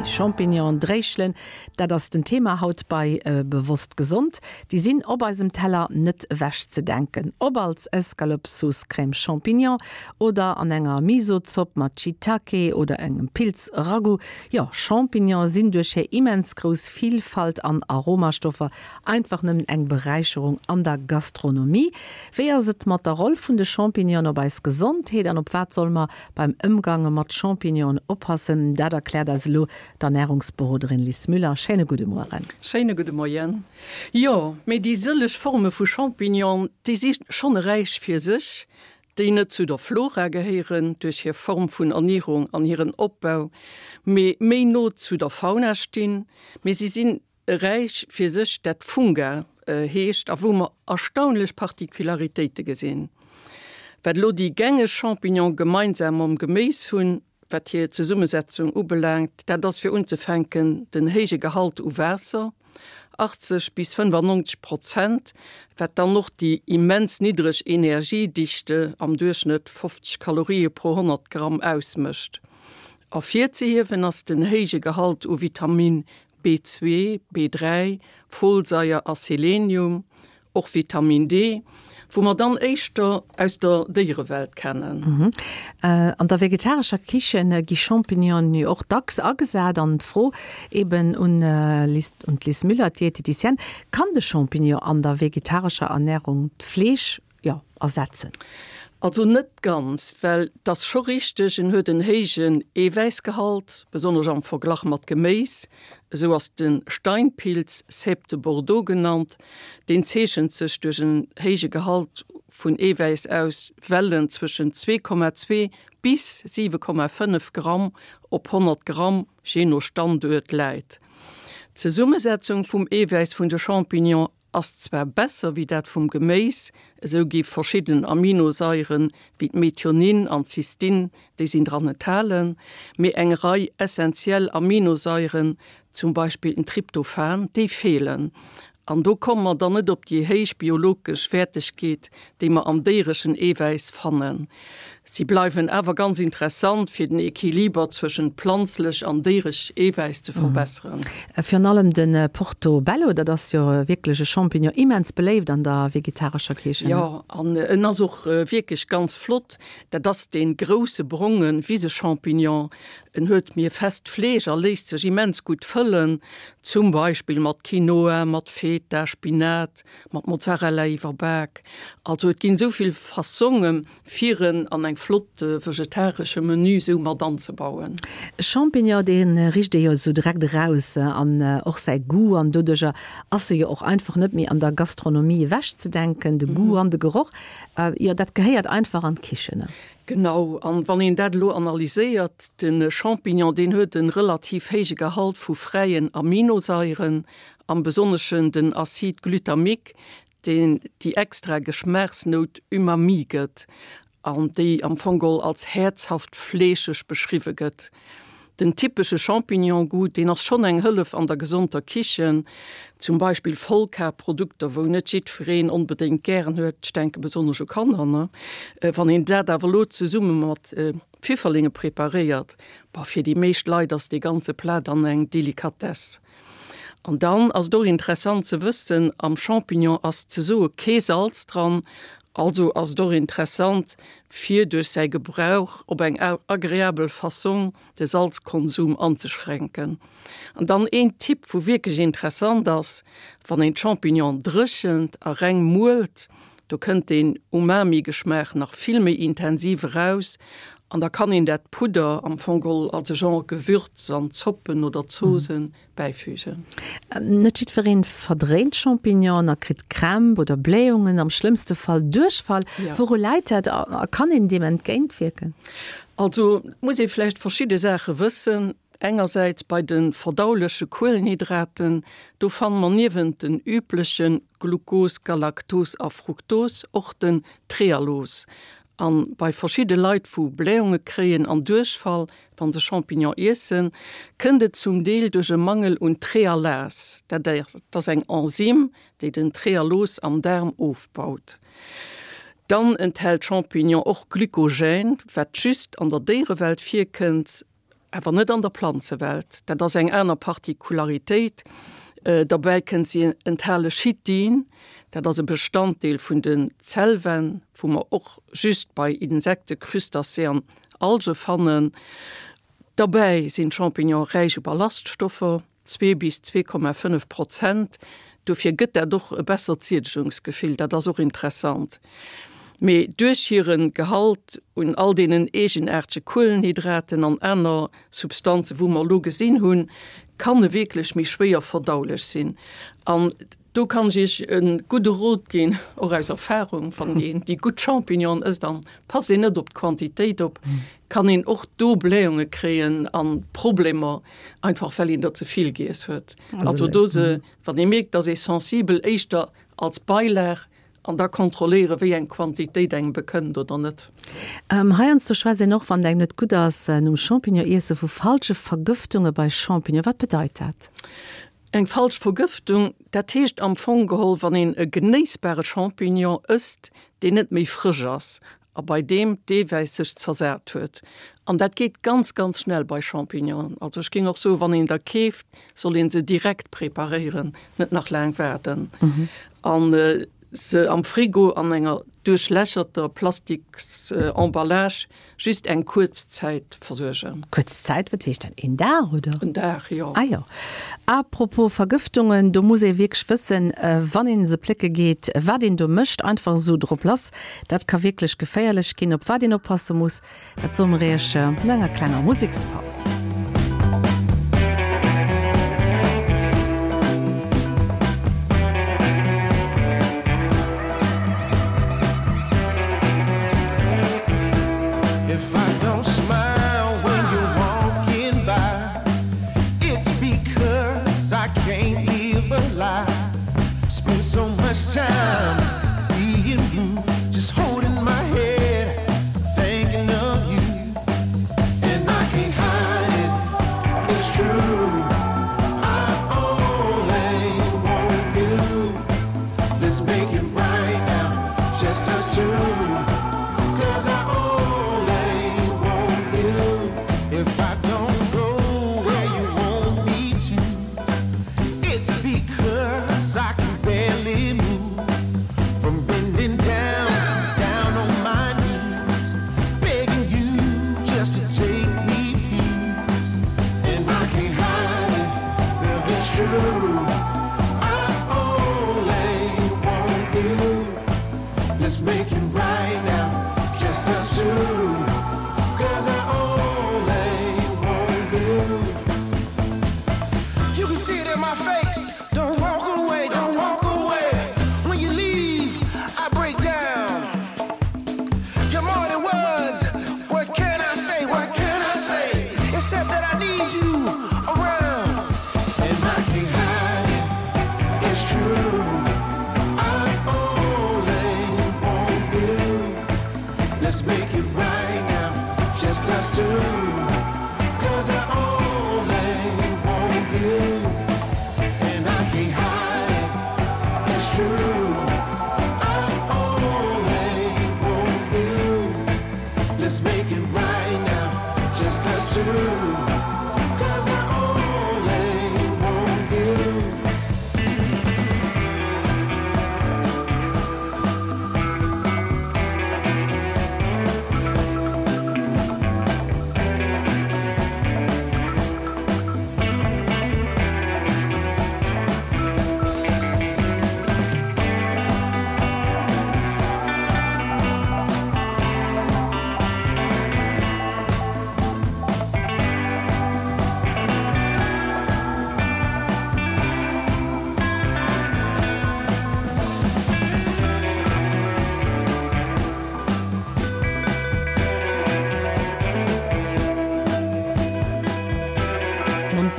Champignonen, Dréischelen, dat ass den Thema haut bei Bewosst Gesond. Déi sinn op eisem Teller net ewech ze denken. Ob als Escalope Sauce Crème Champignon oder an enger Miso-Zopp mat Shiitake oder engem Pilz-Ragout. Jo, Champignonen sinn duerch hir immens grouss Vilfalt an Aromastoffer einfach nëmmen eng Beräicherung an der Gastronomie. Wéi ass et mat der Roll vun de Champignonen op eis Gesondheet an op wat solle mer Beim Ëmgange mat Champignonen oppassen, dat erkläert eis elo d'Ernärungsberoderin Lis Müller. Schéine gudde Mueren. Schéine gudde Moien. Jo, mee déi sëlleg Forme vu Champignon, déi si schonn e Räich fir sech, déi net zu der Flora gehéieren duerch hir Form vun Ernierung an hiren Opbau, mee méi no zu der Fauna stinn. Mee si sinn E Räich fir sech, dat Funga heescht a wou mer erstaunlech Particularitéite gesinn. Wat elo déi gängeg Champignonen gemeinsam mam Geméis hunn, wat hir Zesummesetzung ubelaangt, dat ass fir unzefänken den héije Gehalt u Waasser, 80 bis 95 Prozent, wat dann och déi immens niddreg Energiedichte, am Duerchschnëtt 50 Kalorië pro 100 Gramm, ausmécht. Ervirzehiewen ass den héije Gehalt u Vitamin B2, B3, Folsaier a Selenium, och Vitamin D, wou mer dann éischter aus der Déierewelt kennen. An der vegetarescher Kichen gi Champignonen jo och dacks agesat. An d'Fro eben un d'Liz Müller, d'Dieteticienne, Kann de Champignon an der vegetarescher Ernärung d'Fleesch jo, ersetzen? Also net ganz, well et ass scho richteg, en huet en héijen Eewäissgehalt, besonnesch am Verglach mat Geméis. Esou ass de Steinpilz, Cèpe de Bordeaux genannt, deen zeechent sech duerch en héije Gehalt vun Eewäiss aus, well en zwëschen 2,2 bis 7,5 Gramm op 100 Gramm, jee no Standuert, läit. D'Zesummesetzung vum Eewäiss vun de Champignonen Ass zwar besser wéi dat vum Geméis, esou gi verschidden Aminosaieren wéi d'Methionin an d'Cystin, déi sinn dran enthalen, mee eng Rei essentiell Aminosaieren, zum Beispill den Tryptophan, déi feelen. An do komme mer dann net op déi héich biologesch Wäertegkeet, déi mer am déiereschen Eewäiss fannen. Si bleiwen awer ganz interessant, fir den Equiliber zwëschent planzlech an déieresch Eewäiss ze verbesseren. Virun allem de Portobello, dat ass jo wierklech e Champignon, immens beléift an der vegetarescher Kichen. Jo, an en ass och wierklech ganz flott. Dat ass dee grousse bronge Wisechampignon. En huet mir fest Fleesch a léisst sech immens gutt fëllen, zum Beispill mat Quinoa, mat Feta, Spinat, mat Mozzarella iwwerbak. Also et ginn esou vill Fassongen fir en an eng flott vegetaresche Menü sou mat anzebauen. Champignon dee richt ee jo sou direkt eraus an och säi Goût an doduercher ass e jo och einfach net méi an der Gastronomie ewech ze denken. De Goût an de Geroch, jo dat gehéiert einfach an d'Kichen. Genau, an wann een dat elo analyséiert, de Champignon deen huet en relativ héije Gehalt vu fräien Aminosaieren, am besonneschen den Acide glutamique, deen déi extra Geschmaachsnout Umami gëtt an déi am Fong geholl als häerzhaft fleescheg beschriwwe gëtt. Den typesche Champignon-Goût, deen ass schonn eng Hëllef an der gesonter Kichen, zum Beispill Vollkarprodukter, wou net jiddwereen onbedéngt gären huet, ech denke besonnesch u Kanner, ne? Wann een dat awer elo zesumme mat Pfifferlinge preparéiert, bah, fir déi meescht Leit ass dee ganze Plat dann eng Delikatess. An dann ass et och interessant ze wëssen, am Champignon ass ze soe kee Salz dran, also ass et och interessant fir duerch säi Gebrauch op eng agreabel Fassong de Salzkonsum anzeschränken. An dann een Tipp wou wierklech interessant ass, wann een d'Champignon dréchent a reng muelt, do kënnt deen Umami-Geschmaach nach vill méi intensiv eraus an da kann een dat Pudder am Fong geholl als e Genre Gewürz an Zoppen oder Zosen bäifügen. Net jiddwereen verdréint Champignonen a kritt Krämp oder Blähungen, am schlëmmste Fall Duerchfall. Wouru läit dat a kann een deem entgéintwierken? Also et muss ee vläicht verschidde Saache wëssen. Engersäits bei de verdauleche Kuelenhydraten, do fanne mer niewent den übleche Glucos, Galaktos a Fruktos och den Trealos. An bei verschidde Leit wou Blähunge kréien an Duerchfall wann se Champignon iessen, kënnt et zum Deel duerch e Mangel un Trealas, dat ass eng Enzym déi den Trealos am Daarm ofbaut. Dann enthält Champignon och Glykogen, wat just an der Déierewelt virkënnt. Awer net an der Planzewelt. Dat ass eng aner Partikularitéit. Derbäi kënnt, si enthale Chitin, dat ass e Bestanddeel vun den Zellwänn, wou mer och just bei Insekten, Crustacés an Alge fannen. Derbäi sinn d'Champignone räich u Ballaststoffer. 2 bis 2,5 Prozent. Dofir gëtt dat och e bessert Siedegungsgefill, dat ass och interessant. Mee duerch hiren Gehalt un all deenen eegenaartege Kuelenhydraten an aner Substanzen, wou mer elo gesinn hunn, kann e wierklech méi schwéier verdaulech sinn. An do kann ech Iech e gudde Rot ginn, och aus Erfahrung, Wann een déi gutt Champignonen ësst an passt een net op d'Quantitéit op, kann een och do Blähunge kréien an Problemer, einfach well een der ze vill giess huet. Also do se, wann ee mierkt, dass ee sensibel, éischter als Beilag an da kontrolléiere wéi eng Quantitéit engem bekënnt oder net. Heiansdo schwätzt een och, wann et engem net gutt ass nom Champignon iesse, vu falsche Vergëftunge bei Champignon. Wat bedeit dat? Eng falsch Vergëftung, dat heescht am Fong geholl, wann een e genéissbare Champignon ësst, deen net méi frësch ass a bei deem d'Eewäiss sech zersat huet. An dat geet ganz, ganz schnell bei Champignonen. Also ech géing och soen, wann een der keeft, soll een se direkt preparéieren, net nach laang waarden. An se am Frigo an enger duerchlächerter Plastiksemballage Just eng kuerz Zäit versuergen. Kuerz Zäit, wat heescht dat? Een Dag, oder? En Dag, jo. Ah jo. A propos Vergëftungen, do muss ee wierklech wëssen, wann ee se plécke geet, wat een do mécht. Einfach esou drop lass, dat ka wierklech geféierlech ginn. Op wat een oppasse muss, dat soe mer iech no enger klenger Musekspaus.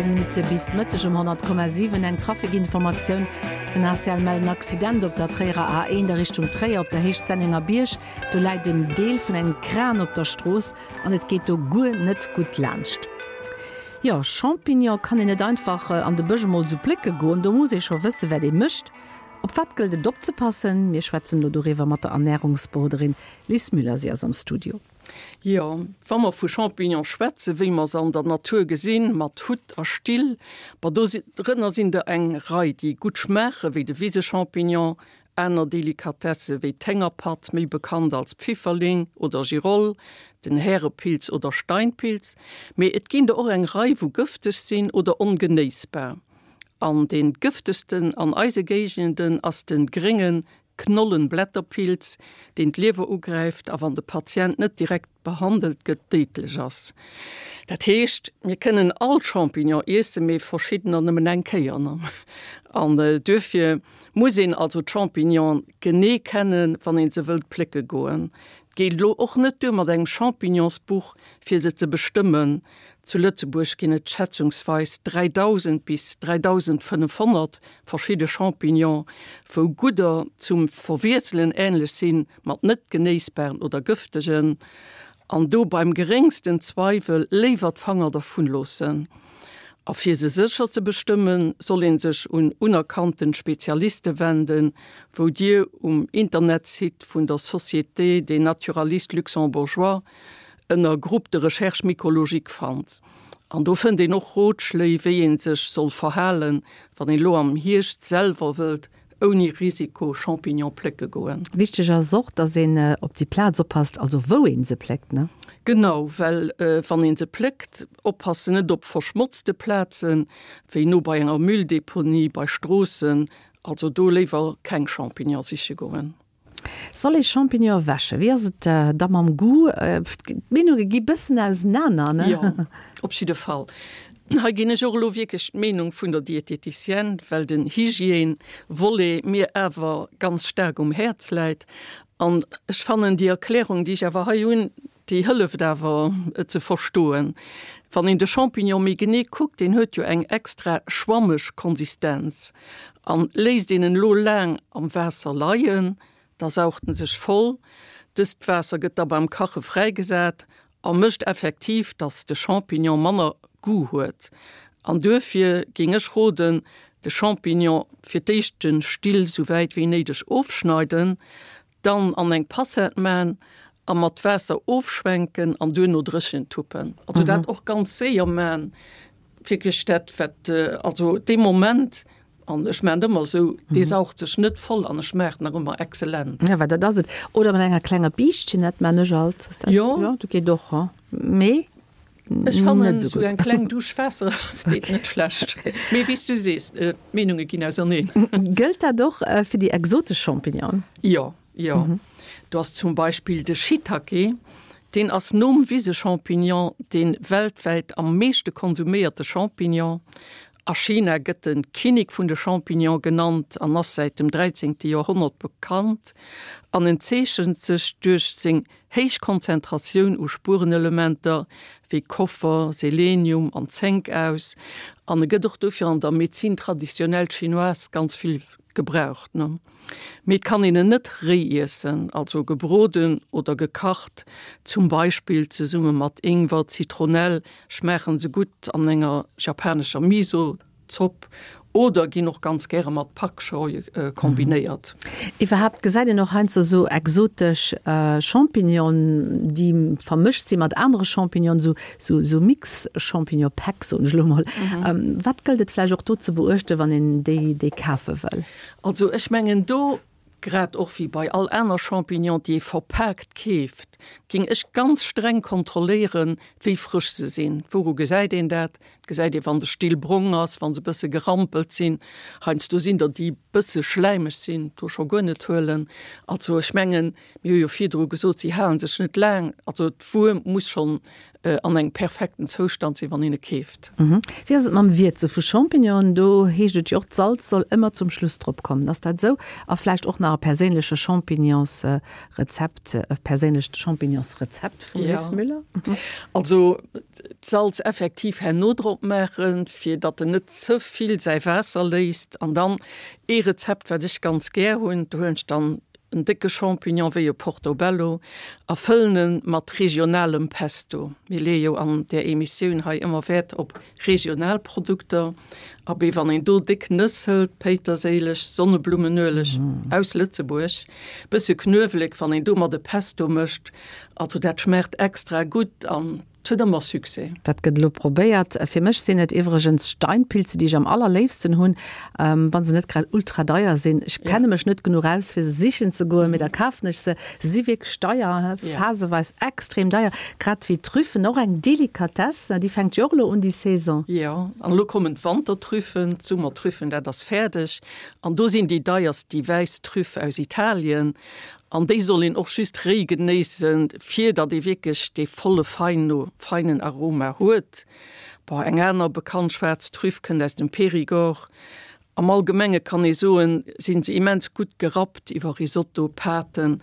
Minutte bis Mëtteg um 100,7 eng Trafikinformatioun. Den ACL mellt en Accident op der Tréierer A1 a Richtung Tréier op der Héicht Sennengerbierg. Do läit en Deel vun engem Kran op der Strooss an et geet do guer net gutt laanscht. Jo, Champignon kann een net einfach an de Bësch emol esou plécke goen, do muss ee scho wësse wat ee mécht. Op wat gëllt et opzepassen? Mir schwätzen elo doriwwer mat der Ernärungsberoderin Lis Müller, si ass am Studio. Jo, wa mer vu Champignone schwätzen, wéi mer se an der Natur gesinn, mat Hutt a Still, ma do rënner sinn der eng Rei, déi gutt schmaachen, wéi de Wisechampignon, aner Delikatesse wéi d'Héngerpatt, méi bekannt als Pfifferling oder Giroll, den Härepilz oder Steinpilz. Mee et ginn der och eng Rei, wou gëfteg sinn oder ongenéissbar. An dee gëftegsten an eise Géigenden ass de grénge Knollenblätterpilz, deen d'Liewer ugräift a wann de Patient net direkt behandelt gëtt, déidlech ass. Dat heescht, mir kënnen all Champignon iessen, mee verschiddener nëmmen eng Kéier. An duerfir muss een also d'Champignonen genee kennen, wann een se wëllt plécke goen. Et geet elo och net duer mat engem Champignonsbuch, fir se ze bestëmmen. Zu Lëtzebuerg ginn et schätzungsweis 3.000 bis 3.500 verschidde Champignonen, wou gudder zum Verwiesselen änlech sinn mat net genéissbaren oder gëftegen. An do beim geréngsten Zweiwel léiwer d'Fanger dervun loossen. A fir se sécher ze bestëmmen, soll een sech un unerkannten Spezialiste wenden, wou Dir um Internetsite vun der Société des Naturalistes Luxembourgeois ënner Groupe de recherche mycologique fannt. An do fënnt een och Rotschléi, wéi ee sech soll verhalen, wann een elo am Hierscht selwer wëllt ouni Risiko Champignon plécke goen. Wichteg ass och, dass een op déi Plaz oppasst, also wou een se pléckt, ne? Genau, well wann een se pléckt, oppassen net op verschmotzte Plazen, wéi no bei enger Mülldeponie, bei Stroossen, also do léiwer keng Champignon siche goen. Soll ee Champignonen wäschen? Wéi ass et da mam Goût? D'Meenunge gi bëssen ausenaner, ne? Jo, op jidde Fall. Hei ginn ech och elo wierklech d'Meenung vun der Diététicienne, well den Hygiène-Volet mir awer ganz staark um Häerz läit. An ech fannen déi Erklärung, déi ech awer hei hunn, déi hëlleft awer, et ze verstoen. Wann een de Champignon méi genee kuckt, deen huet jo eng extra schwammeg Konsistenz. An léisst een en elo laang am Waasser leien, da saucht en sech voll. Dëst Waasser gëtt da beim Kache fräigesat a mécht effektiv, dass de Champignon manner Goût huet. An duerfir géing ech roden, de Champignon fir d'éischt de Still sou wäit wéi néideg ofschneiden, Dann an eng Passette maan a mat Waasser ofschwenken an duerno dréchen tuppen. Also dat och ganz séier maan, wierklech dat wat also dee Moment, an ech maan et ëmmer esou, dee saugt sech net voll an e schmaacht nach ëmmer excellent. Ja, well dat ass et. Oder mat enger klenger Biischtchen, dat maan ech alt. Ass dat, Jo. jo, dat geet och, ha? Mee Ech fannen esou eng kleng Dusch Waasser deet net schlecht. Mee wéi s du sees, d'Meenunge ginn auserneen. Gëllt dat och fir déi exotesch Champignonen? Jo, jo. Do ass zum Beispill de Shiitake, deen ass nom Wisechampignon dee weltwäit am meeschte konsuméierte Champignon. A China gëtt de Kinnek vun de Champignonen genannt an ass säit dem 13. Joerhonnert bekannt an en zeechent sech duerch seng Héich Konzentratioun u Spuerenelementer wéi Koffer, Selenium an Zénk aus an e gëtt och dofir an der Médecine traditionnelle chinoise ganz vill gebraucht. Mee et kann een en net réi iessen, also gebroden oder gekacht, zum Beispill zesumme mat Ingwer, Zitronell schmaachen se gutt an enger japanescher Miso. Zopp oder ginn och ganz gäre mat Pak Choi kombinéiert. Iwwerhaapt gesäit een och heiansdo sou exotesch Champignonen, déi vermëscht si mat anere Champignonen, sou sou sou Mix-Champignon-Päck soen ech elo mol. Wat gëllt et vläicht och do ze beuechten, wann een déi déi kafe wëll? Also ech mengen do Grad och wéi bei all aner Champignon, déi ee verpaakt keeft, géing ech ganz streng kontrolléieren, wéi frësch se sinn. Wouru gesäit een dat? Dat gesäit ee wann de Still brong ass, wann se bësse gerampelt sinn. Heiansdo sinn der, déi bësse schläimeg sinn, do scho guer net huelen. Also ech mengen, mir hu jo virdru gesot, si hale sech net laang. Also d'Wuer muss schonn an engem perfekten Zoustand sinn, wann een e keeft. Wéi ass et mam Wierze vu Champignonen? Do heescht et jo och, d'Salz soll ëmmer zum Schluss drop kommen. Ass dat esou? A vläicht och nach e perséinleche Champignonsrezept, e perséinlecht Champignonsrezept vum Liz Müller? Also d'Salz effektiv herno drop maachen, fir datt en net ze vill säi Waasser léisst. An dann ee Rezept, wat ech ganz gär hunn, do huelen ech dann. en décke Champignon wéi e Portobello a fëllen en mat regionalem Pesto. Mir leeë jo an där Emissioun hei ëmmer Wäert op regional Produkter. Abee, wann een do déck Nëss hëlt, Péiterséileg, Sonneblummenueleg aus Lëtzebuerg, bësse Knuewelek, wann een domat e Pesto mécht, also dat schmaacht extra gutt an 't huet ëmmer Succès. Dat gëtt elo probéiert. Fir mech sinn et iwwregens Steinpilze, déi ech am allerléifsten hunn, wa se net grad ultra deier sinn. Ech kenne mech net genuch aus, fir se sichen ze goen, mee da kafen ech se. Se si wierklech deier, phaseweis extrem deier, grad wéi d'Trüffen, och eng Delikatesse. Déi fänkt jo och elo un, déi Saison. Jo, an elo kommen d'Wantertrüffen, d'Summertrüffen, dat ass fäerdeg. An do sinn déi deierst déi wäiss Trüff aus Italien. An déi soll een och just réi genéissen, fir datt ee wierklech dee volle feinen Aroma huet. Bon, eng aner bekannt schwaarz Trüff kënnt aus dem Périgord. Am Allgemenge kann ee soen, si se immens gutt gerappt iwwer Risotto, Pâten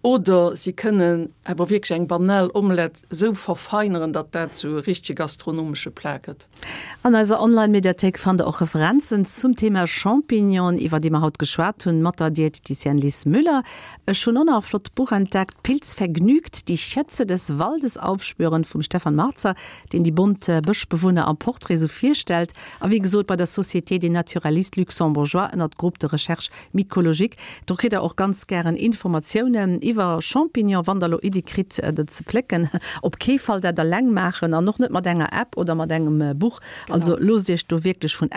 oder si kënnen awer wierklech eng banal Omelette esou verfeineren, datt dat zu e richtege gastronomesche Plat gëtt. An eiser Online-Mediathéik fannt der och Referenzen zum Thema Champignonen, iwwer déi mer haut geschwat hunn, mat der Diététicienne Lis Müller. Ech hunn och nach e flott Buch entdeckt, Pilzvergnügt, die Schätze des Waldes aufspüren vum Stefan Marzer, deen déi bont Bëschbewunner am Portrait esou virstellt. A wéi gesot bei der Société des Naturalistes Luxembourgeois ënnert Groupe de recherche mycologique. Do kritt der och ganz gären Informatiounen iwwer Champignon, wann der elo Iddie kritt der ze plécken. Op kee Fall dat alleng maachen an och net mat enger App oder mat engem Buch. Also loosst iech do wierklech vun.